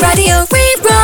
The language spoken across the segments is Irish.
Raidió Rí-Rá.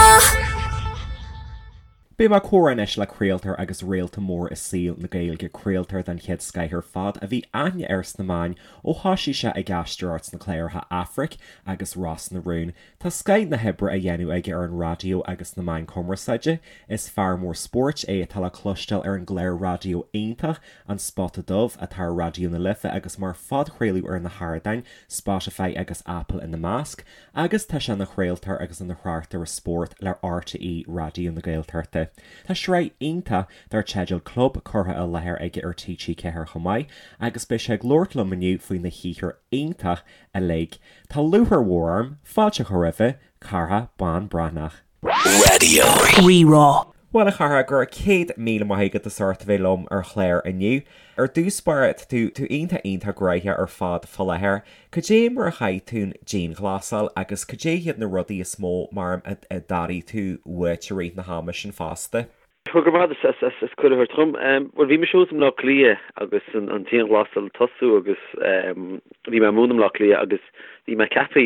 Beidh mé ag comhrá anois le craoltóir agus réalta mór i saol na Gaeilge, craoltóir den chéad scoith ar fad a bhí aithne air sna meáin ó thoisigh sé ag aisteoireacht sna cláracha Aifric agus Ros na Rún. Tá scoith na hoibre á dhéanamh aige ar an raidió agus sna meáin cumarsáide. Is fear mór spóirt é atá le cloisteáil ar an gclár raidió iontach An Spota Dubh atá ar Raidió na Life agus mar phodchraoladh ar na hardáin, Spotify agus Apple ina measc, agus tá sé ina chraoltóir agus ina thráchtaire spóirt le RTÉ Raidió na Gaeltachta. Tá sraith iontach dar teideal Club curtha i láthair aige ar TG4 chomh maith agus beidh sé ag labhairt liom inniu faoina shaothar iontach uilig. Tá lúcháir mhór orm fáilte a chur roimhe, Cárthach Bán Breathnach. Raidió Rí-Rá. Bhuel, a Chárthaigh, go raibh 100,000 maith agat as ucht a bheith liom ar chlár inniu. Ar dtús báire, tá tú tú iontach iontach gnóthach ar fad fá láthair. Cad é mar a chaith tú an dianghlasáil agus cad é hiad na rudaí is mó mar a d'airigh tú uait i rith na hama sin fosta? Go raibh maith agat as cuireadh a thabhairt dhom. Bhuel, bhí mise thuas i mBleá Cliath agus an dianghlasáil ag tosú agus bhí mé ag múineadh i mBleá Cliath agus bhí mé ceaptha,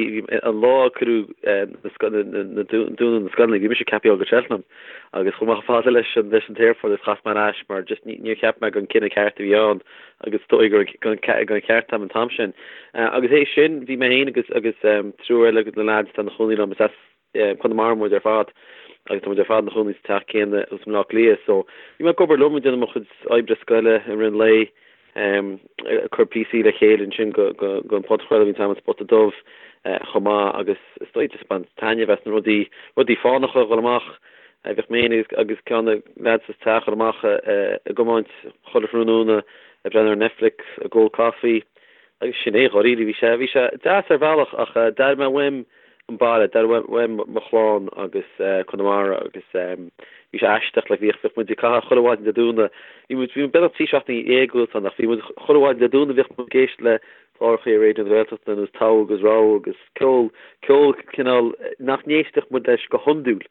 an lá a cuireadh na dúnadh na scoileanna, bhí mise ceaptha a dhul go Cheltenham agus chuaigh mé chomh fada leis an leis an t-aerfort agus chas mé ar ais mar just níor cheap mé gur an cinneadh ceart a bhí ann agus is dóigh gur an ceart am an t-am sin. Agus théis sin bhí mé féin agus agus triúr eile de na lads atá ina chónaí liom, is as Conamara muid ar fad agus tá muid ar fad ina chónaí sa teach céanna thuas i mBleá Cliath so bhí mé ag obair liom ag déanamh mo chuid oibre scoile i rith an lae, ag cur píosaí le chéile ansin go go an podchraoladh bhí an t-am an Spota Dubh chomh maith agus is dóigh just baint taitneamh as na rudaí rudaí fánacha a dhul amach bhíodh mé féin agus ceann de na lads sa teach ag dul amach ag iomáint chuile thráthnóna ag breathnú ar Netflix ag ól coffee agus sin é dháiríre bhí sé bhí sé deas ar bhealach ach d'airigh mé uaim an baile, d'airigh uaim mo chlann agus Conamara agus bhí sé aisteach, like bhíodh, bhíodh muid ag caitheamh chuile mhaidin Dé Domhnaigh, bhí muid, bhí muid beagnach 13 seachtaine thuas ann ach bhí muid chuile mhaidin Dé Domhnaigh bhíodh muid ag éisteacht le cláracha ar Raidió na Gaeltachta ar nós Togha agus Rogha agus ceol, ceol cineál nach n-éistfeadh muid leis go hiondúil.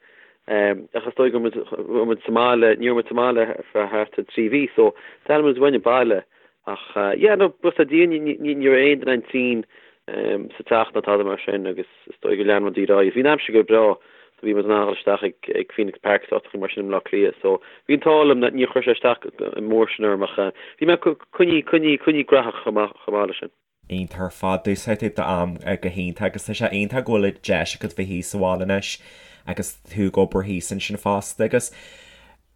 Ach is dóigh go raibh muid, raibh muid sa mbaile, ní raibh muid sa mbaile ar feadh thart ar 3 mhí so d'airigh muid uainn an baile Ach yeah, no, buíochas le Dia, ní raibh aon duine againn tinn sa teach ná tada mar sin agus is dóigh gur lean rudaí ar aghaidh. Bhí an aimsir go breá so bhí muid in ann a dhul isteach ag Phoenix Park is áiteacha mar sin i mBleá Cliath so bhí an t-ádh liom níor chuir sé isteach an mór sin orm ach bhí mé coinnithe, coinnithe, coinnithe graitheach chomh maith, chomh maith leis sin. Iontach ar fad. D'úsáid tú d'am go hiontach agus tá sé iontach go bhfuil an deis agat bheith thíos sa bhaile anois agus tú ag obair thíos ansin fosta agus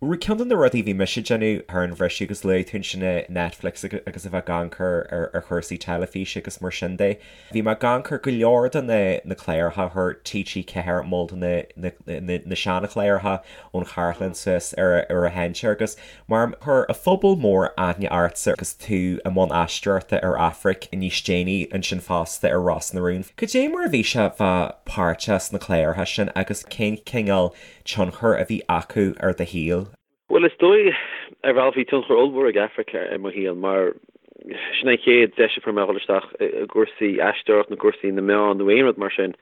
ceann de na rudaí a bhí mise ag déanamh thar an bhriseadh agus luaigh tú ansin Netflix agus a bheith ag amharc ar chúrsaí teilifíse agus mar sin de. Bhí mé ag amharc ar go leor de na cláracha a chuir TG4 mol de na seanchláracha ón chartlann suas ar a sheinnteoir agus Mar chuir an phobal mór aithne ortsa agus tú i mbun aisteoireachta ar Aifric níos déanaí ansin fosta ar Ros na Rún. Cad é mar a bhí sé bheith páirteach sna cláracha sin agus cén cineál tionchar a bhí acu ar do shaol? Bhuel, is dóigh, ar bhealach bhí tionchar ollmhór ag Aifric ar mo shaol mar sin an chéad deis a fuair mé a dhul isteach i gcúrsaí aisteoireacht nó cúrsaí na meán nó aon rud mar sin.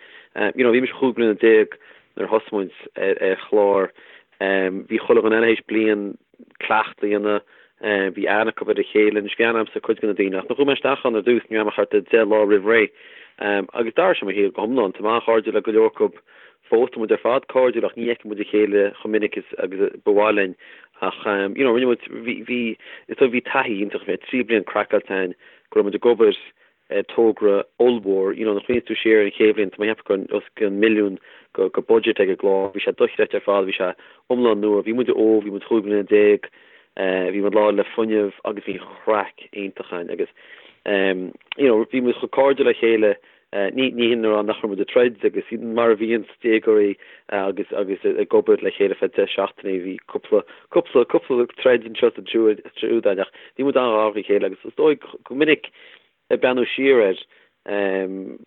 You know, bhí mise 15 bliana nuair a thosaigh muid ar chlár Bhí chuile dhuine eile théis bliain cleachtadh a dhéanamh, bhí aithne acu ar a chéile, anois bhí aithne agamsa ar cuid de na daoine ach nuair a chuaigh mé isteach ann ar dtús ní raibh mé ach thart ar 10 lá roimh ré agus d'athraigh sé mo shaol go hiomlán. Tá mé an-chairdiúil le go leor acu fós, tá muid ar fad cairdiúil ach ní fheiceann muid a chéile chomh minic is agus ba mhaith linn ach you know rinne muid, bhí, bhí, is dóigh bhí taithí iontach, bhí 3 bliain craiceáilte againn go raibh muid ag obair togra ollmhór. You know, nuair a chuimhníonn tú siar ar an chéad bhliain, tá mé ag ceapadh go raibh os cionn milliún go go budget ag an gclár. Bhí sé dochreidte ar fad, bhí sé iomlán nua. Bhí muid óg, bhí muid 15 bliana, bhí muid lán le fuinneamh agus bhí an chraic iontach againn agus you know, bhí muid chomh cairdiúil le chéile, ní ní hin a rá nach raibh muid ag troid agus mar a bhíonn déagóirí agus agus ag obair le chéile feadh 10 seachtainí, bhí cúpla cúpla cúpla troid anseo is ansiúd againn ach bhí muid an-ghar dá chéile agus is dóigh go minic Ag breathnú siar air,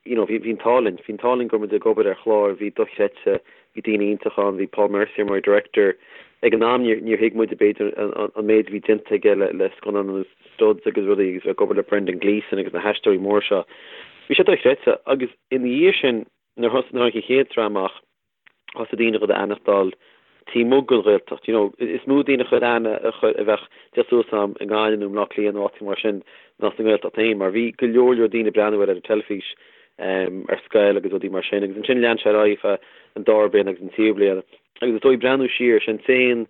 you know, bhí an t-ádh linn, bhí an t-ádh linn go raibh muid ag obair ar chlár a bhí dochreidte, bhí daoine iontacha ann, bhí Paul Mercier mar director. Ag an am níor thuig muid b'fhéidir an méid a bhí déanta aige le scannáin ar nós Studs agus rudaí agus ag obair le Brendan Gleeson agus na haisteoirí móra seo. Bhí sé dochreidte agus ina dhiaidh sin nuair a tháinig an chéad sraith amach, thosaigh daoine a chuir aithne d'fháil taobh amuigh den Ghaeltacht. You know, is mó daoine a chuir aithne a chuir a bheadh ag teacht suas a'm i nGaillimh nó i mBleá Cliath nó áiteacha mar sin ná sa nGaeltacht féin mar bhí go leor leor daoine ag breathnú air ar an teilifís. ar scoil agus rudaí mar sin agus ansin lean sé ar aghaidh feadh an dara bliain agus an tríú bliain agus is dóigh breathnú siar, sin t-aon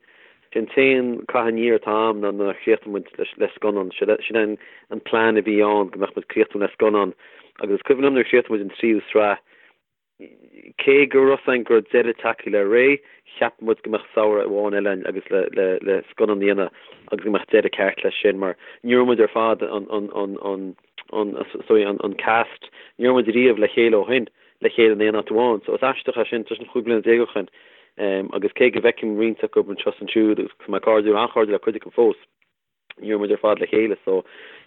sin t-aon caitheamh aniar atá a'm ná nuair a chríochnaigh muid le scannán, sin é an plean a bhí ann go mbeadh muid críochnaithe le scannán agus is cuimhin liom nuair a chríochnaigh muid an tríú sraith Cé go raibh 's a'inn go raibh deireadh tagtha le ré, cheap muid go mbeadh samhradh amháin eile a'inn agus le le le scannán a dhéanamh agus go mbeadh deireadh ceart leis sin mar ní raibh muid ar fad an an an an an sorry an an cast ní raibh muid riamh le chéile ó shin le chéile in aon áit amháin so is aisteach é sin tá sin 15 bliana ó shin agus cé go bhfeicim roinnt acu anseo is ansiúd agus tá mé cairdiúil an-chairdiúil le cuid acu fós. ní raibh muid ar fad le chéile so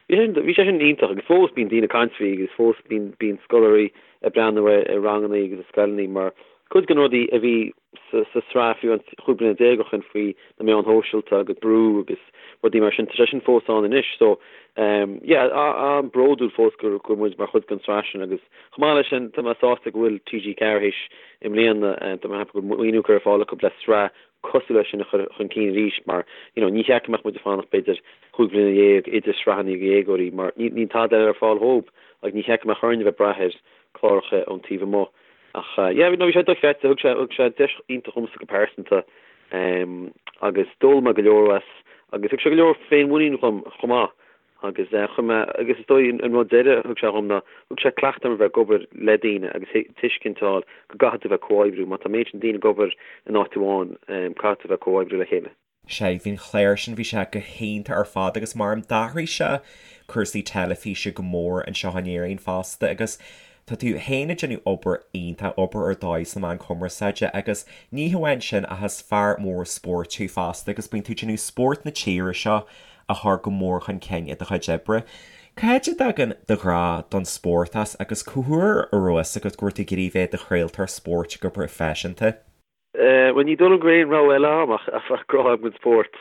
bhí sé bhí sé sin iontach agus fós bíonn daoine ag caint faoi agus fós bíonn bíonn scoláirí ag breathnú air i rangannaí agus i scoileannaí mar cuid de na rudaí a bhí sa sa sraith fiú an 15 bliana ó shin faoi na meáin shóisialta agus brú agus rudaí mar sin tá sé sin fós ann anois so um yeah an-bhródúil fós go go muid mar chuid den sraith sin agus chomh maith leis sin tá mé sásta go bhfuil TG4 théis i mbliana tá mé ag ceapadh go bhfuil maoiniú curtha ar fáil acu le sraith cosúil leis sin a chur chun cinn arís mar you know ní cheart go mbeadh muid ag fanacht b'fhéidir chúig bhliana dhéag idir sraitheanna do dhéagóirí mar níl tada eile ar fáil dhóibh agus ní cheart go mbeadh orainn a bheith ag brath ar cláracha ón taobh amuigh ach yeah no bhí sé dochreidte thug sé thug sé deis iontach dhomsa go pearsanta um agus d'fhoghlaim mé go leor as agus thug sé go leor féinmhuinín dhom chomh maith Agus chuir mé, agus is dóigh an rud deiridh a thug sé dhom ná, thug sé cleachtadh dom a bheith ag obair le daoine agus tuiscint a fháil go gcaithfidh tú bheith ag comhoibriú. Má tá an méid sin daoine ag obair in áit amháin, caithfidh tú bheith ag comhoibriú le chéile. Sea, bhí an chlár sin, bhí sé go hiontach ar fad agus mar d'athraigh sé cúrsaí teilifíse go mór anseo in Éirinn fosta agus Tá tú féin ag déanamh obair iontach, obair ar dóigh sna meáin chumarsáide agus ní hamháin sin ach is fear mór spóirt thú fosta agus bíonn tú ag déanamh spórt na tíre seo a chur go mór chun cinn i do chuid oibre. Cá háit a dtagann do ghrá don spórt as agus cá huair a raibh fhios agat go raibh tú ag iarraidh bheith i do chraoltóir spóirt go proifisiúnta? Bhuel, ní dóigh liom go raibh aon rogha eile agam ach grá agam don spórt,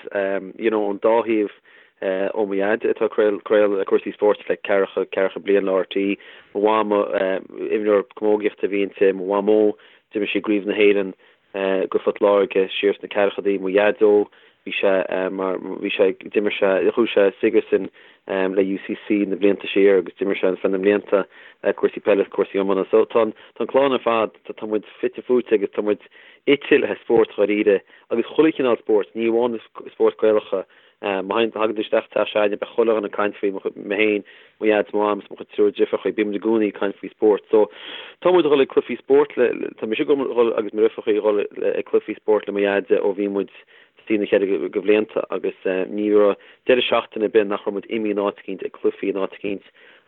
you know, ón dá thaobh, ó mo dhaid atá ag craoladh cúrsaí spóirt le ceathracha, ceathracha bliain le RTÉ, mo mhama, imreoir camógaíochta a bhí inti, mo mhamó, d'imir sí i gCraobh na hÉireann do Phort Láirge siar sna ceathrachaidí, mo dhaideo, bhí sé mar, bhí sé, d'imir sé, chuaigh sé Sigerson le UCC na blianta siar agus d'imir sé feadh na mblianta cúrsaí peile is cúrsaí iomána. So tá an, tá an clann ar fad, tá muid fite fuaite agus tá muid ite le spórt dháiríre agus chuile chineál spóirt, ní amháin spóirt Gaelacha. Má thagann tú isteach teach s'againne beidh chuile dhuine ag caint faoi, mé féin, mo dhaid, mo mham is mo chuid triúr driofrachaí, bíonn muid i gcónaí ag caint faoi spórt. So tá muid ag dhul ag cluichí spóirt le, tá mise ag dhul agus mo dhriofrachaí ag dhul ag cluichí spóirt le mo dhaid ó bhí muid sna ceithre de bhlianta agus ní raibh deireadh seachtaine ar bith nach raibh muid imithe in áit eicínt ag cluichí in áit eicínt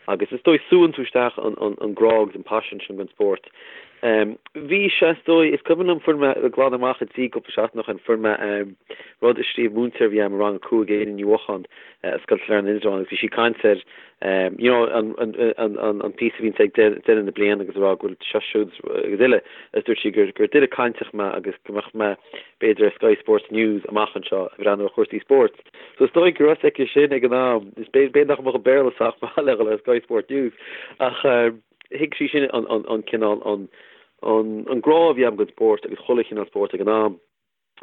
agus is dóigh súann tú isteach an grá agus an paisean sin don spórt. Bhí sé is dóigh, is cuimhin liom fuair mé ag glanadh amach an tí cúpla seachtain ó shin, fuair mé rud a scríobh múinteoir a bhí agam i rang a 5, Éanna Ní Mhocháin, i Scoil Sailearna Indreabhán agus bhí sí ag caint ar you know an an an píosa a bhíonn ag deireadh na bliana agus ag rá go bhfuil seo siúd agus uile agus dúirt sí gur gur duine cainteach mé agus go mbeadh mé b'fhéidir ar Sky Sports News amach anseo ag breathnú ar chúrsaí spóirt. So is dóigh go raibh fhios aici sin ag an am, is b'fhéidir nach mbeadh an Béarla sách maith le dhul ar Sky Sports News ach thuig sí sin an cineál an an grá a bhí agam don spórt agus chuile chineál spóirt ag an am.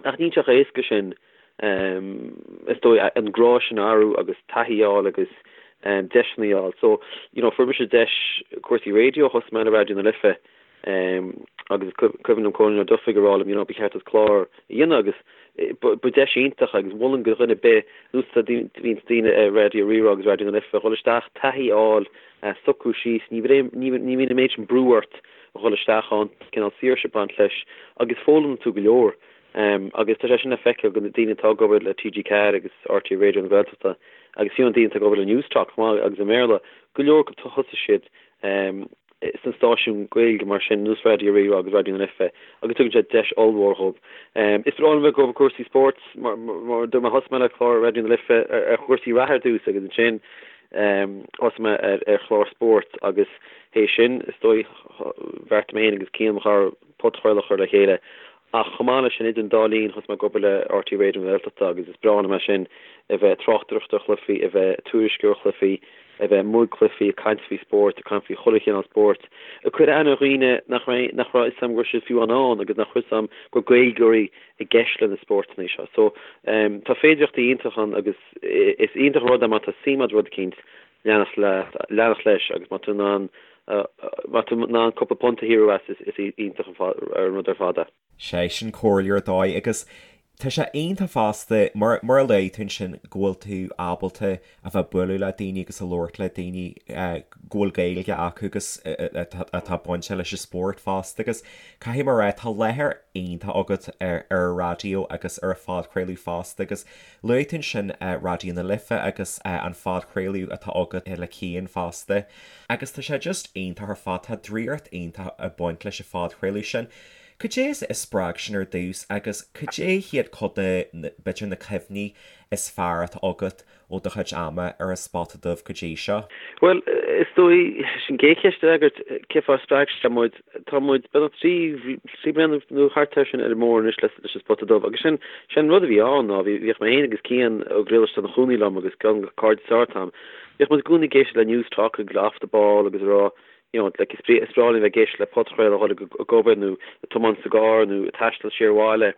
Ach níl sé chomh héasca sin is dóigh an grá sin a athrú agus taithí a fháil agus deiseanna a fháil. So, you know, fuair mise deis cúrsaí raidió, thosaigh mé le Raidió na Life agus is cuimhin liom Cóilín Ó Dufaigh ag rá liom, you know, ba cheart duit clár a dhéanamh agus ba deis iontach agus mholfainn do dhuine ar bith, nós a bhíonns daoine ar Raidió Rí-Rá agus Raidió na Life, dhul isteach, taithí a fháil, socrú síos, ní bhíonn an méid sin brú ort a dhul isteach ann, cineál saoirse ag baint leis agus foghlaimíonn tú go leor. Agus tá sé sin le feiceáil do na daoine atá ag obair le TG4 agus RTÉ Raidió na Gaeltachta agus fiú na daoine atá ag obair le Newstalk chomh maith agus i mBéarla, go leor acu thosaigh siad sna stáisiúin Gaeilge mar sin, nós Raidió Rí-Rá agus Raidió na Life agus tugann sé deis ollmhór dhóibh. Is breá liom bheith ag obair cúrsaí spóirt mar dúirt mé thosaigh mé le clár Raidió na Life ar chúrsaí reatha ar dtús agus ansin thosaigh mé ar chlár spóirt agus théis sin is dóigh bheartaigh mé féin agus Cian mo chara podchraoladh a chur le chéile Ach chomh maith leis sin, idir an dá linn, thosaigh mé ag obair le RTÉ Raidió na Gaeltachta agus is breá liom é sin, a bheith ag tráchtaireacht ar chluichí, a bheith ag tuairisciú ar chluichí, a bheith amuigh ag cluichí, ag caint faoi spórt, ag caint faoi chuile chineál spóirt, ag cur aithne ar dhaoine nach raibh, nach raibh fhios a'm go raibh siad fiú ann ann agus nach raibh fhios a'm go raibh Gaeilgeoirí i gceist le na spórtanna seo. So, tá féidireachtaí iontach ann agus is iontach an rud é má tá suim a'd i rud eicínt, leanacht leat, leanacht leis agus má tá tú in ann. Má tá tú in ann cúpla punt a shaothrú as, is iontach an rud ar fad é. Sé sin comhairle ar dóigh agus tá sé iontach fosta mar mar a luaigh tú ansin go bhfuil tú ábalta a bheith ag bualadh le daoine agus a labhairt le daoine go bhfuil Gaeilge acu agus atá bainte leis an spórt fosta agus caithfidh mé a rá tá láthair iontach agat ar ar an raidió agus ar an phodchraoladh fosta agus luaigh tú ansin Raidió na Life agus an phodchraoladh atá agat le Cian fosta agus tá sé just iontach ar fad tá draíocht iontach ag baint leis an phodchraoladh sin. Cad é a spreag sin ar dtús agus cad é hiad cuid de, b'fhéidir, na cuimhní is fearr atá agat ó do chuid ama ar an Spota Dubh go dtí seo? Bhuel, is dóigh, leis an gcéad cheist a fhreagairt, cén fáth ar spreag sé muid, tá muid beagnach 3 bliana nó thart air sin ar an mbóthar anois leis an Spota Dubh agus sin, sin an rud a bhí ann ná bhí, bhíodh mé féin agus Cian Ó Griallais atá ina chónaí liom agus ceann de cairde is fearr atá agam, bhíodh muid i gcónaí ag éisteacht le Newstalk agus le Off the Ball agus ag rá you know, like, is breá linn bheith ag éisteacht le podchraoladh ag dul ag obair nó ag tiomáint sa gcarr nó ag taisteal siar abhaile.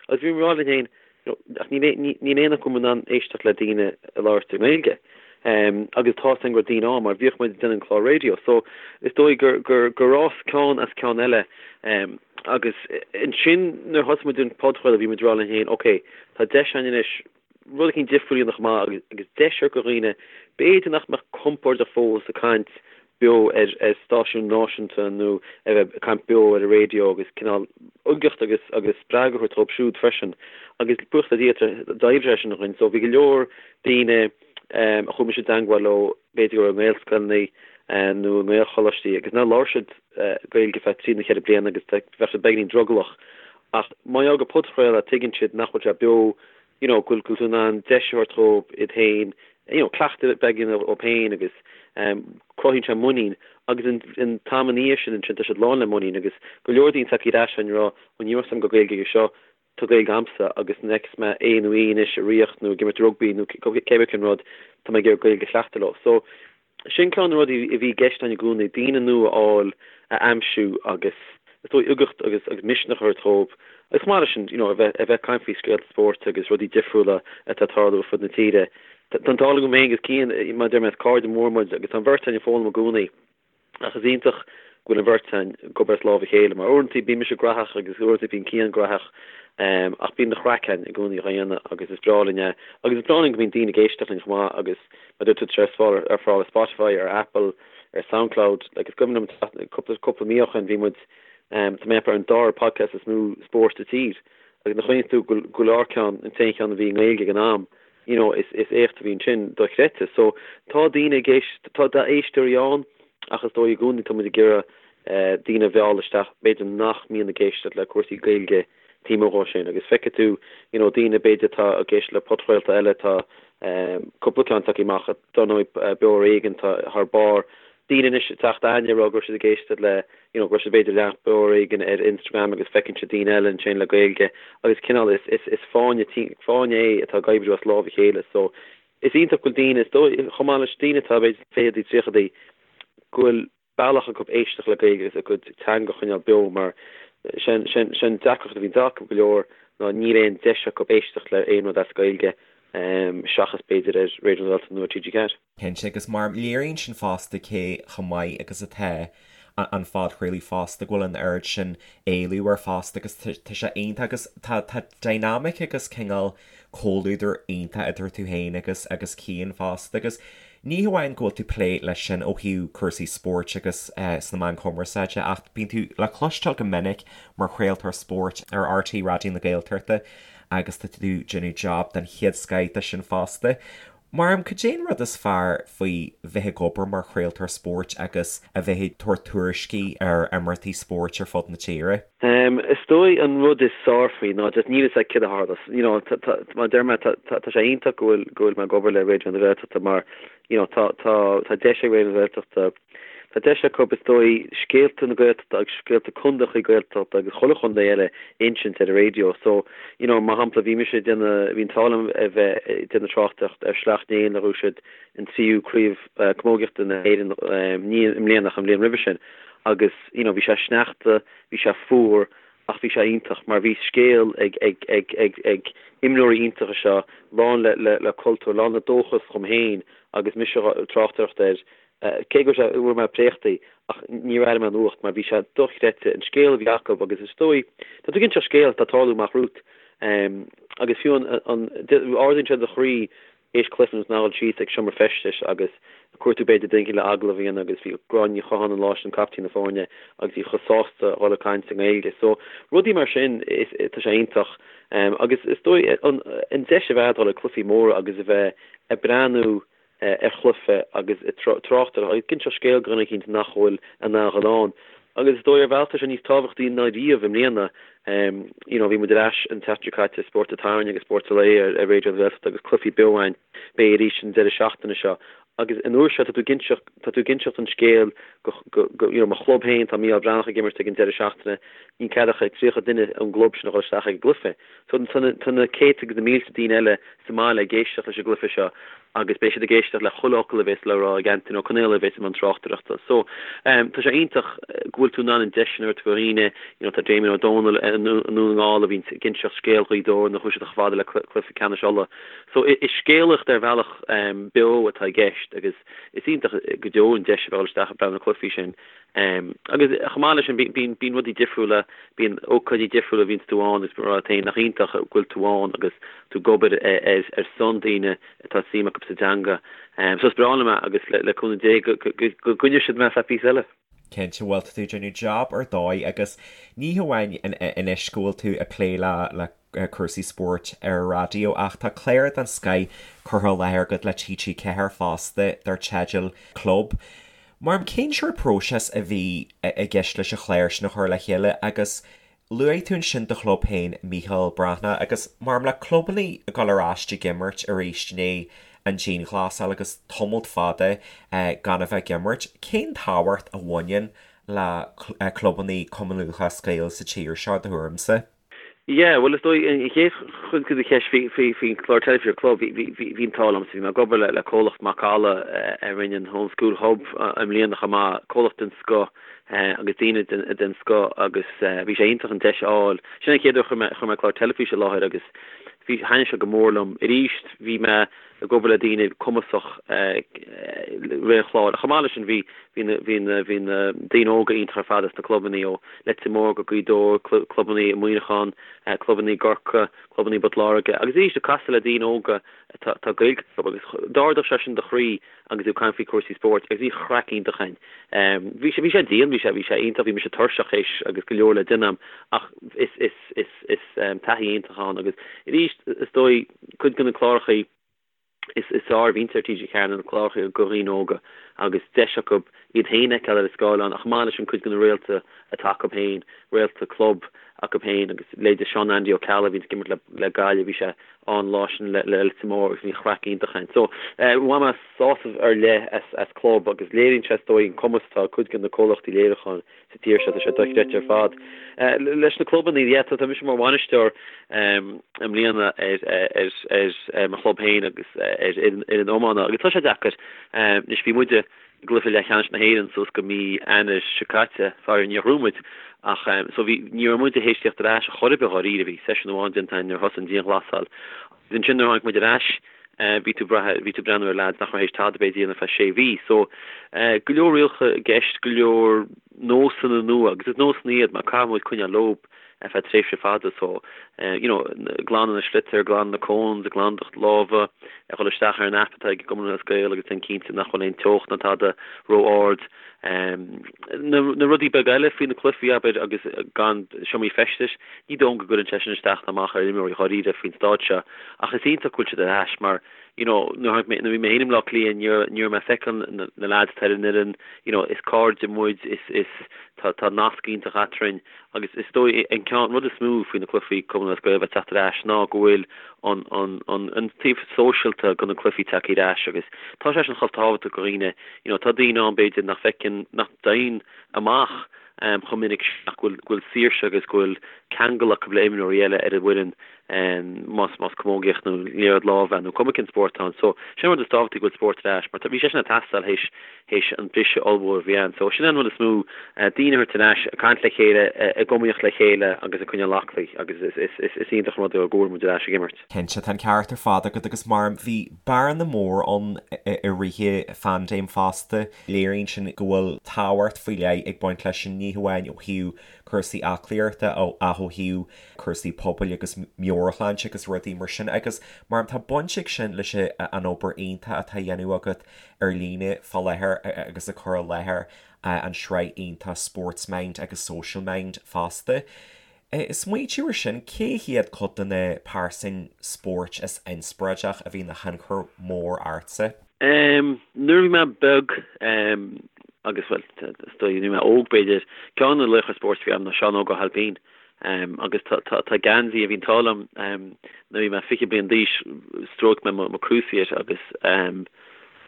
Agus bhí mé ag rá linn féin, you know, ach níl níl aon acu in ann éisteacht le daoine ag labhairt i nGaeilge. Um, agus tá a fhios againn go raibh daoine ann mar bhíodh muid ag déanamh an clár raidió. So is dóigh gur, gur, gur fhás ceann as ceann eile. Um, agus ansin nuair a thosaigh muid an podchraoladh bhí muid ag rá linn féin, ok, tá deis againn anois rud éicint difriúil a dhéanamh chomh maith agus deis a thabhairt do dhaoine b'fhéidir nach mbeadh compordach fós ag caint beo ar ar stáisiún náisiúnta nó a bheith ag caint beo ar an raidió agus cineál uigeacht agus agus spreagadh a thabhairt dóibh siúd freisin agus buíochas le Dia d'oibrigh sé sin dhúinn so bhí go leor daoine a chuaigh mise i dteangmháil leo b'fhéidir go raibh i nGaelscoileanna nó i nGaelcholáistí agus nár labhair siad Gaeilge feadh trí nó cheithre bliana agus bheadh siad beagáinín drogallach ach má gheall gur podchraoladh tuigeann siad nach bhfuil sé beo you know, go bhfuil tú in ann deis a thabhairt dhóibh iad féin, you know, cleachtadh beag a dhéanamh dhóibh féin agus um, cruthaíonn sé muinín agus an, an t-am ina dhiaidh sin ansin tá siad lán le muinín agus go leor daoine tagtha ar ais ag rá, ó ní raibh a fhios agam go raibh Gaeilge aige seo, tá Gaeilge a'msa agus nuair a fheicfeas mé é nó í anois ag rith nó ag imirt rugbaí nó cé bith cén rud, tá mé ag iarraidh Gaeilge a chleachtadh leo. So, Sin ceann de na rudaí a bhí i gceist againn i gcónaí, daoine nua a fháil, a aimsiú agus is dóigh uigeacht agus agus misneach a thabhairt dhóibh agus chomh maith leis sin, you know, a bheith a bheith ag caint faoi scéalta spóirt agus rudaí difriúla atá ag tarlú ar fud na tíre. Tá an t-ádh liom féin agus Cian, mar a deir mé, is cairde mór muid agus tá an bheirt againn ag foghlaim i gcónaí. Ach is iontach go bhfuil an bheirt againn ag obair as lámh a chéile, mar uaireanta bíonn mise graitheach agus uaireanta bíonn Cian graitheach, ach bíonn an chraic againn i gcónaí á dhéanamh agus is breá linn é. Agus is breá linn go mbíonn daoine ag éisteacht linn chomh maith agus mar a dúirt tú tá sé ar fáil ar Spotify, ar Apple, ar Soundcloud, like is cuimhin liom cúpla cúpla mí ó shin bhí muid, tá mé ag ceapadh ar an dara podcast is mó spóirt sa tír agus nuair a chuimhníonn tú go bhfuil ár ceann, an t-aon cheann a bhí i nGaeilge ag an am, you know, is is éacht a bhí ansin dochreidte. So tá daoine ag éist, tá éisteoirí ann ach is dóigh i gcónaí tá muid ag iarraidh eh, daoine a mhealladh isteach b'fhéidir nach mbíonn ag éisteacht le cúrsaí Gaeilge taobh amuigh dhó sin agus feicfidh tú you know daoine b'fhéidir atá ag éisteacht le podchraolta eile tá eh, cúpla ceann tagtha amach dar ndóigh eh, Beo ar Éigean tá thar barr daoine anois ag teacht aithne ag rá go raibh siad ag éisteacht le you know go raibh siad b'fhéidir ag leanacht Beo ar Éigean ar Instagram agus feiceann siad daoine eile ansin le Gaeilge agus cineál is is is fáinne fáinne é atá ag oibriú as lámh a chéile so is iontach go bhfuil daoine is dóigh chomh maith leis daoine atá b'fhéidir fichidí tríochadaí go bhfuil bealach acu éisteacht le Gaeilge agus a gcuid teanga a choinneáil beo mar sin sin sin deacracht a bhíonn acu go leor ná níl aon deis acu éisteacht le aon rud as Gaeilge seachas b'fhéidir ar Raidió na Gaeltachta nó ar TG4. Cinnte, agus mar léiríonn sin fosta cé chomh maith agus atá an phodchraoladh fosta, go bhfuil an oiread sin éileamh air fosta agus tá sé iontach agus tá tá dynamic agus cineál comhluadar iontach idir tú féin agus agus Cian fosta agus ní hamháin go bhfuil tú plé leis sin ó thaobh cúrsaí spóirt agus sna meáin chumarsáide ach bíonn tú le cloisteáil go minic mar chraoltóir spóirt ar RTÉ Raidió na Gaeltachta agus tá tú déanamh job den chéad scoith de sin fosta. Mar cad é an rud is fearr faoi bheith ag obair mar chraoltóir spóirt agus a bheith ag tabhairt tuairiscí ar imeachtaí spóirt ar fud na tíre? Is dóigh an rud is fearr faoi ná just níl fhios agat céard a tharlós. You know, tá, tá, mar a deir mé, tá, tá, tá sé iontach go bhfuil, go bhfuil mé ag obair le Raidió na Gaeltachta mar, you know, tá, tá, tá deis ag Raidió na Gaeltachta, Tá deis acu, is dóigh, scéalta na Gaeltachta agus scéalta contaethacha Gaeltachta agus chuile chontae eile a insint ar an raidió. So, you know, mar shampla, bhí mise ag déanamh, bhí an t-ádh liom a bheith ag déanamh tráchtaireacht ar Shleacht Néill nuair a bhuaigh siad an tríú craobh camógaíochta na hÉireann, ní i mbliana ach an bhliain roimhe sin. Agus, you know, bhí sé sneachta, bhí sé fuar ach bhí sé iontach mar bhí scéal ag, ag, ag, ag, ag imreoirí iontacha seo, lán le, le, le cultúr, lán le dóchas dhom féin agus mise ag tráchtaireacht air. Cé go raibh sé, bhfuair mé préachtaí ach níor airigh mé an fhuacht mar bhí sé dochreidte an scéal a bhí acu agus is dóigh, tá tú ag inseacht scéal atá ag tarlú amach romhat agus fiú an, an, ardaíonn sé do chroí théis cluiche nó a dhul síos ag seomra feistis agus ag cuartú b'fhéidir duine éicint le agallamh a dhéanamh agus bhí Gráinne Ní Chatháin an lá sin, captaen na foirne agus í chomh sásta a dhul ag caint i nGaeilge. So rudaí mar sin is tá sé iontach agus is dóigh an an deis a bheith a'd dhul ag cluichí móra agus a bheith ag breathnú ar chluiche agus ag trácht air agus ag inseacht scéil do dhuine eicínt nach bhfuil in ann a dhul ann. Agus is dóigh ar bhealach tá sé níos tábhachtaí ná riamh i mbliana. You know bhí muid ar ais an tseachtain seo caite, Spórt an tSathairn agus Spórt an Lae ar ar Raidió na Gaeltachta agus cluichí beo againn. Beidh arís an deireadh seachtaine seo. Agus an uair seo tá tú ag inseacht, tá tú ag inseacht an scéil go, go, go, you know mo chlub féin, tá Mícheál Breathnach ag imirt ag an deireadh seachtaine, níl cead ach ag 30 duine ón gclub sin a dhul isteach ag an gcluiche. So tá na, tá na céadta agus na mílte daoine eile sa mbaile ag éisteacht leis an gcluiche seo agus beidh siad ag éisteacht le chuile fhocal a bhéas le rá ag Antaine Ó Conaola a bhéas i mbun tráchtaireachta. So, tá sé iontach go bhfuil tú in ann an deis sin a thabhairt do dhaoine, you know, tá Damien Ó Dónaill i nDún na nGall a bhíonn ag inseacht scéal Ghaoth Dobhair nuair a chuaigh siad chomh fada le cluiche ceannais Uladh. So, is scéalaíocht ar bhealach beo atá i gceist agus is iontach go deo an deis a bheith ag dul isteach ag breathnú ar na cluichí sin. Agus chomh maith leis sin, bíonn bíonn rudaí difriúla, bíonn ócáidí difriúla a bhíonns tú ann agus rá leat féin nach iontach go bhfuil tú ann agus tú ag obair ar ar son daoine atá suim acu sa dteanga. So is breá liom é agus le le cúnamh Dé go go go gcoinneoidh siad mé ar feadh píosa eile. Cinnte, bhuel tá tú ag déanamh jab ar dóigh agus ní hamháin anois go bhfuil tú ag plé le le cúrsaí spóirt ar an raidió ach tá clár den scoith curtha i láthair agat le TG4 fosta dar teideal Club. Mar cén sórt próiseas a bhí i gceist leis an chlár sin a chur le chéile agus luaigh tú ansin do chlub féin Mícheál Breathnach agus mar le clubanna ag dul ar ais ag imirt arís i ndiaidh an dianghlasáil agus tamalt fada gan a bheith ag imirt, cén tábhacht a bhaineann le clubanna Cumann Lúthchleas Gael sa tír seo, do thuairimse? Yeah, bhuel is dóigh an chéad chuid de do cheist faoi faoi faoin chlár teilifíse Club, bhí bhí bhí bhí an t-ádh liomsa, bhí mé ag obair le le comhlacht Macalla a rinne an Home School Hub i mbliana chomh maith, comhlacht den scoth agus daoine den den scoth agus bhí sé iontach an deis a fháil. Sin an chéad uair a chuir mé chuir mé clár teilifíse i láthair agus bhí thaitnigh sé go mór liom. Arís bhí mé ag obair le daoine cumasach rith an chláir. Chomh maith leis sin bhí bhí na bhí na bhí na daoine óga iontach ar fad as na clubanna ó Leitir Móir go Gaoth Dobhair, clubanna i Muineachán, clubanna i gCorcaigh, clubanna i bPort Láirge agus arís ag casadh le daoine óga atá atá Gaeilge acu agus d'ardaigh sé sin do chroí agus tú ag caint faoi cúrsaí spóirt agus bhí craic iontach againn. Bhí sé bhí sé dian, bhí sé bhí sé iontach, bhí mise tuirseach théis agus go leor le déanamh ach is is is is taithí iontach ann agus arís is dóigh Cuid de na clárachaí is fearr a bhíonns ar TG4 ná na clárachaí do dhaoine óga agus deis acu iad féin a fheiceáil ar an scáileán ach chomh maith leis sin cuid de na réalta atá acu féin, réalta club acu féin agus leithéide Seán Andy Ó Ceallaigh a bhíonns ag imirt le Gaillimh, bhí sé ann an lá sin le Leitir Móir agus bhí craic iontach ann. So bhain mé sásamh ar leith as Club agus léiríonn sé is dóigh an cumas atá ag cuid de na comhlachtaí léiriúcháin sa tír seo, tá sé dochreidte ar fad. Leis na clubanna, yeah, tá mise mar bhainisteoir i mbliana ar ar mo chlub féin agus ar fhoireann iomána agus tá sé deacair. Anois bhí muide i gcluiche leathcheannais na hÉireann suas go mí Eanáir seo caite, faraor níor ghnóthaigh muid ach so bhí ní raibh muide théis tíocht ar ais chor ar bith dháiríre, bhí seisiún amháin déanta againn nuair a thosaigh an dianghlasáil agus ansin nuair a tháinig muid ar ais bhí tú brath, bhí tú breathnú ar leaids nach raibh théis tada b'fhéidir a dhéanamh ar feadh sé mhí. So, go leor rialacha i gceist, go leor nósanna nua, agus is nósanna iad mar caithfidh muid coinneáil leo ar feadh tréimhse fada. So, you know, glanadh na sliotar, glanadh na cones, glanadh do lámha, a dhul isteach ar an app atá ag an gCumann Lúthchleas Gael agus déan cinnte nach bhfuil aon teocht ná tada ró-ard. Na rudaí beaga eile faoi na cluichí, abair, agus gan seomraí feistis, ní dóigh liom go gcuireann sé sin isteach ná amach ar imreoirí dháiríre faoin staid seo ach is iontach go bhfuil siad ar ais mar you know nuair a bhí mé féin i mBleá Cliath ní raibh ní raibh mé ag feiceáil na na lads atá ar an fhoireann, you know is cairde muid, is is tá tá nasc iontach eadrainn agus is dóigh an ceann rud is mó faoi na cluichí Cumann Lúthchleas Gael a bheith teacht ar ais ná go bhfuil an an an an taobh sóisialta de na cluichí tagtha ar ais agus tá sé sin chomh tábhachtach do dhaoine you know tá daoine ann b'fhéidir nach bhfeiceann nach dtéann amach chomh minic sin ach go bhfuil go bhfuil saoirse agus go bhfuil ceangal acu le imreoirí eile ar an bhfoireann. Más más camógaíocht nó liathróid láimhe nó cuma cén spórt atá ann. So sin an rud is tábhachtaí go bhfuil spórt ar ais mar bhí sé sin ag teastáil théis théis an briseadh ollmhór a bhí ann. So sin an rud is mó, daoine a thabhairt ar ais, ag caint le chéile, ag iomaíocht le chéile agus ag coinneáil aclaí agus is is is is iontach an rud é go bhfuil muid ar ais ag imirt. Cinnte, tá an ceart ar fad agat agus mar bhí bearna mór ann i rith an phaindéim fosta. Léiríonn sin go bhfuil tábhacht faoi leith ag baint leis sin, ní hamháin ó thaobh cúrsaí aclaíochta ach ó thaobh cúrsaí pobail agus meabhairshláinte agus rudaí mar sin agus mar tá baint ag sin leis an obair iontach atá á dhéanamh agat ar líne fá láthair agus ag cur i láthair an sraith iontach Sports Mind agus Social Mind fosta. Smaointiú ar sin, cé hiad cuid de na pearsain spóirt is inspioráideach a bhí ina thionchar mór ortsa? Nuair a bhí mé beag, agus bhuel, is dóigh, nuair a bhí mé óg b'fhéidir, ceann de na laochra spóirt a bhí agam ná Seán Óg Ó hAilpín. Agus tá geansaí a bhí an t-ádh liom nuair a bhí mé 20 bliain d'aois, stróic mé mo cruciate agus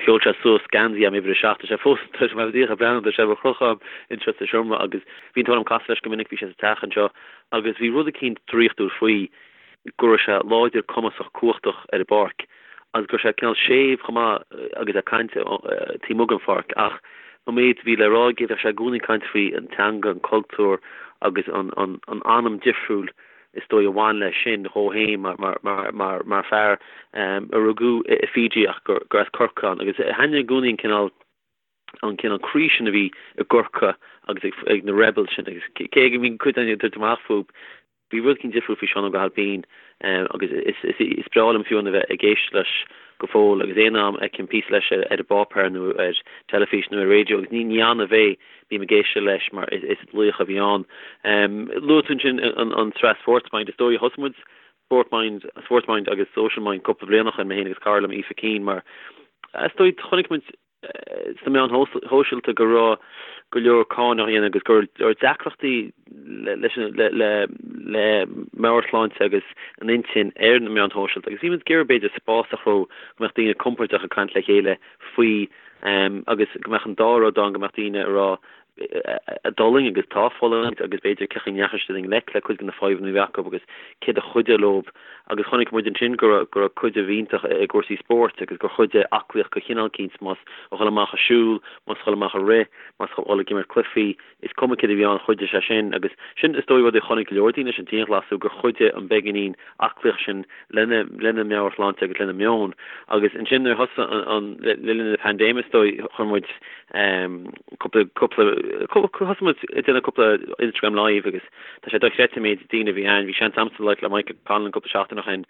sheol sé suas geansaí agam uimhir 7. Tá sé fós, tá sé díreach ag breathnú, tá sé ar crochadh anseo sa seomra agus bhí an t-ádh liom casadh leis go minic, bhí sé sa teach anseo agus bhí rud eicínt draíochtúil faoi go raibh sé láidir, cumasach, cumhachtach ar an bpáirc agus go raibh sé cineál séimh chomh maith agus é ag caint taobh amuigh den pháirc ach an méid a bhí le rá aige bheadh sé i gcónaí ag caint faoi an teanga, an cultúr agus an anam difriúil is dóigh a bhain leis sin dhó féin mar fear a rugadh i Fiji ach gur as Corcaigh ann agus thaitnigh i gcónaí an cineál an cineál croí sin a bhí i gCorcaigh agus ag na rebels sin agus cé go mbíonn cuid againn ag tabhairt amach fúthu Bhí rud eicínt difriúil faoi Seán Óg Ó hAilpín agus is breá liom fiú a bheith ag éisteacht leis go fóill agus aon am a fheicim píosa leis ar an bpáipéar nó ar teilifís nó ar raidió agus ní annamh é, bím ag éisteacht leis mar is laoch a bhí ann. Luaigh tú ansin an tsraith Sports Mind, is dóigh thosaigh muid Sport Mind, Sports Mind agus Social Mind cúpla bliain ó shin, mé féin agus cara liom Aoife Keane mar is dóigh chonaic muid sna meáin shóisialta go raibh go leor cáineadh á dhéanamh agus go raibh deacrachtaí leis le meabhairshláinte agus an intinn ar na meáin shóisialta agus bhí muid ag iarraidh b'fhéidir spás a chruthú go mbeadh daoine compordach ag caint le chéile faoi agus go mbeadh an dá rud ann go mbeadh daoine ag rá a d'fhulaing agus atá ag fulaingt agus b'fhéidir cén chaoi a ndeachaigh siad i ngleic le cuid de na fadhbanna a bhí acu agus céard a chuidigh leo agus chonaic muid ansin go raibh go raibh cuidiú iontach i gcúrsaí spóirt agus gur chuidigh aclaíocht de chineál eicínt más a dhul amach ag siúl, más a dhul amach ag rith, más a dhul ag imirt cluichí, is cuma céard a bhí ann chuidigh sé sin agus sin is dóigh rud a chonaic go leor daoine leis an dianghlasú gur chuidigh an beagáinín aclaíocht sin lena lena meabhairshláinte agus lena meon agus ansin nuair a thosaigh an le linn na paindéime is dóigh chuir muid cúpla cúpla thosaigh muid ag déanamh cúpla Instagram live agus tá sé dochreidte an méid daoine a bhí ann. Bhí seans a'msa labhairt le Michael Conlan cúpla seachtain ó shin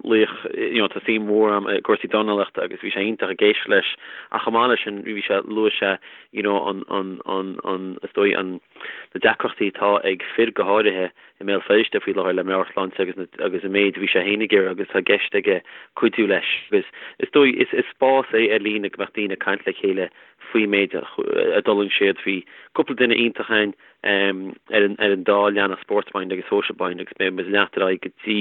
laoch you know tá suim mhór a'm i gcúrsaí dornálaíochta agus bhí sé iontach ag éisteacht leis ach chomh maith leis sin bhí sé luaigh sé you know an an an an is dóigh an na deacrachtaí atá ag fir go háirithe i mBéal Feirste faoi láthair le meabhairshláinte agus na agus an méid a bhí sé féin ag iarraidh agus tá i gceist aige cuidiú leis agus is dóigh is is spás é ar líne go mbeadh daoine ag caint le chéile faoi méid a d'fhulaing siad. Bhí cúpla duine iontach ann ar an ar an dá leathanach Sports Mind agus Social Mind agus beidh muid ag leanacht ar aghaidh go dtí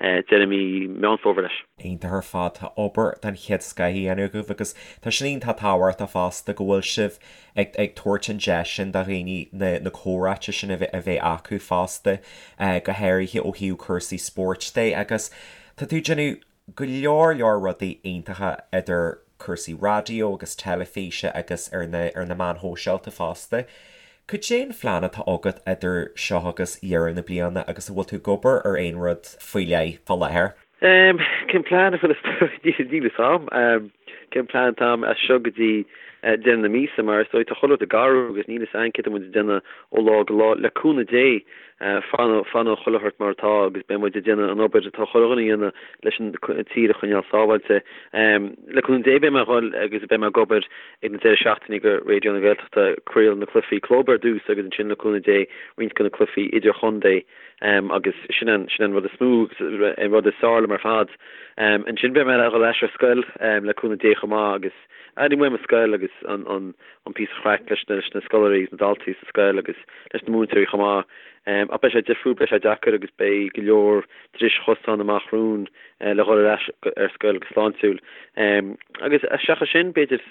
deireadh mí Meán Fómhair leis. Iontach ar fad, tá obair den chéad scoth á dhéanamh agaibh agus tá sin iontach tábhachtach fosta go bhfuil sibh ag ag tabhairt an deis sin do dhaoine na na comhráite sin a bheith a bheith acu fosta, go háirithe ó thaobh cúrsaí spóirt de agus tá tú ag déanamh go leor leor rudaí iontacha idir cúrsaí raidió agus teilifíse agus ar na ar na meáin shóisialta fosta. Cad é an phlean atá agat idir seo agus dheireadh na bliana agus an bhfuil tú ag obair ar aon rud faoi leith fá láthair? Cén plean? Níl a fhios a'm cén plean atá a'm as seo go dtí deireadh na míosa mar is dóigh tá chuile rud ag athrú agus níl a fhios a'm céard atá muid ag déanamh ó lá go lá. Le cúnamh Dé fanfaidh chuile shórt mar atá agus beidh muid ag déanamh an obair atá chuile dhuine a dhéanamh leis an tír a choinneáil sábháilte. Le cúnamh Dé beidh mé ag dhul agus beidh mé ag obair ag na deireadh seachtaine do Raidió na Gaeltachta ag craoladh na cluichí club ar dtús agus ansin le cúnamh Dé roinnt de na cluichí idirchontae. Agus sin an, sin an rud is mó agus an rud is fearr liom ar fad. Ansin beidh mé ag dhul ar ais ar scoil le cúnamh Dé chomh maith agus airím uaim an scoil agus an, an, an píosa chraic leis na, leis na scoláirí agus na daltaí sa scoil agus leis na múinteoirí chomh maith. Ach beidh sé difriúil, beidh sé deacair agus beidh go leor dris chosán amach romhainn le dhul ar ais ar scoil go sláintiúil. Agus seachas sin, b'fhéidir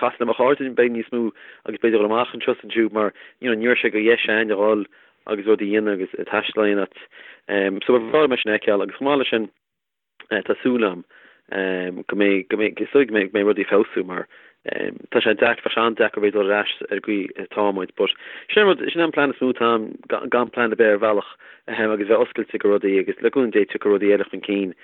casadh le mo chairde beidh níos mó agus b'fhéidir dhul amach anseo is ansiúd mar, you know, ní raibh sé de dheis a'inn a dhul. agus rudaí a dhéanamh agus taisteal a dhéanamh. So ba bhreá liom é sin a fheiceáil agus chomh maith leis sin tá súil agam go mbeidh, go mbeidh, is dóigh go mbeidh, go mbeidh rudaí ag feabhsú mar tá sé deacair, bheadh sé an-deacair bheith ag dul ar ais ar an gcaoi atá muid but sin an rud, sin an plean is mó atá agam, gan plean ar bith ar bhealach agus bheith oscailte go rudaí agus le cúnamh Dé tiocfaidh rudaí eile chun cinn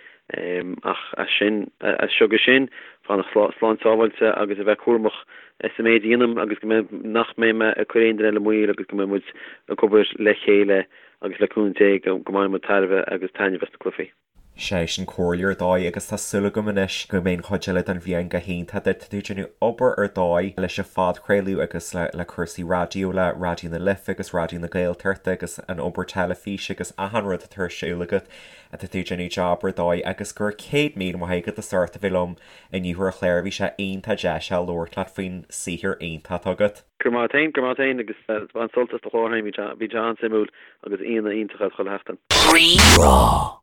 ach as sin, as seo go sin, fanacht slán sábháilte agus a bheith cúramach sa méid a dhéanaim agus go mbeidh, nach mbeidh mé ag cur aon duine eile i mbaol agus go mbeidh muid ag obair le chéile agus le cúnamh Dé go mbainfidh muid tairbhe agus taitneamh as na cluichí. Sé sin comhairle ar dóigh agus tá súil agam anois go mbeidh an chuid eile den bhliain go hiontach duit. Tá tú ag déanamh obair ar dóigh leis an phodchraoladh agus le cúrsaí raidió le Raidió na Life agus Raidió na Gaeltachta agus an obair teilifíse agus achan rud atá ar siúl agat. Tá tú ag déanamh job ar dóigh agus go raibh 100,000 maith agat as ucht a bheith liom inniu ar an chlár. Bhí sé iontach deas a labhairt leat faoin saothar iontach atá agat. Go raibh maith agat féin, go raibh maith agat féin agus bain sult as do chlár féin, bhí sé an-suimiúil agus aíonna iontacha chuile sheachtain. Rí-Rá.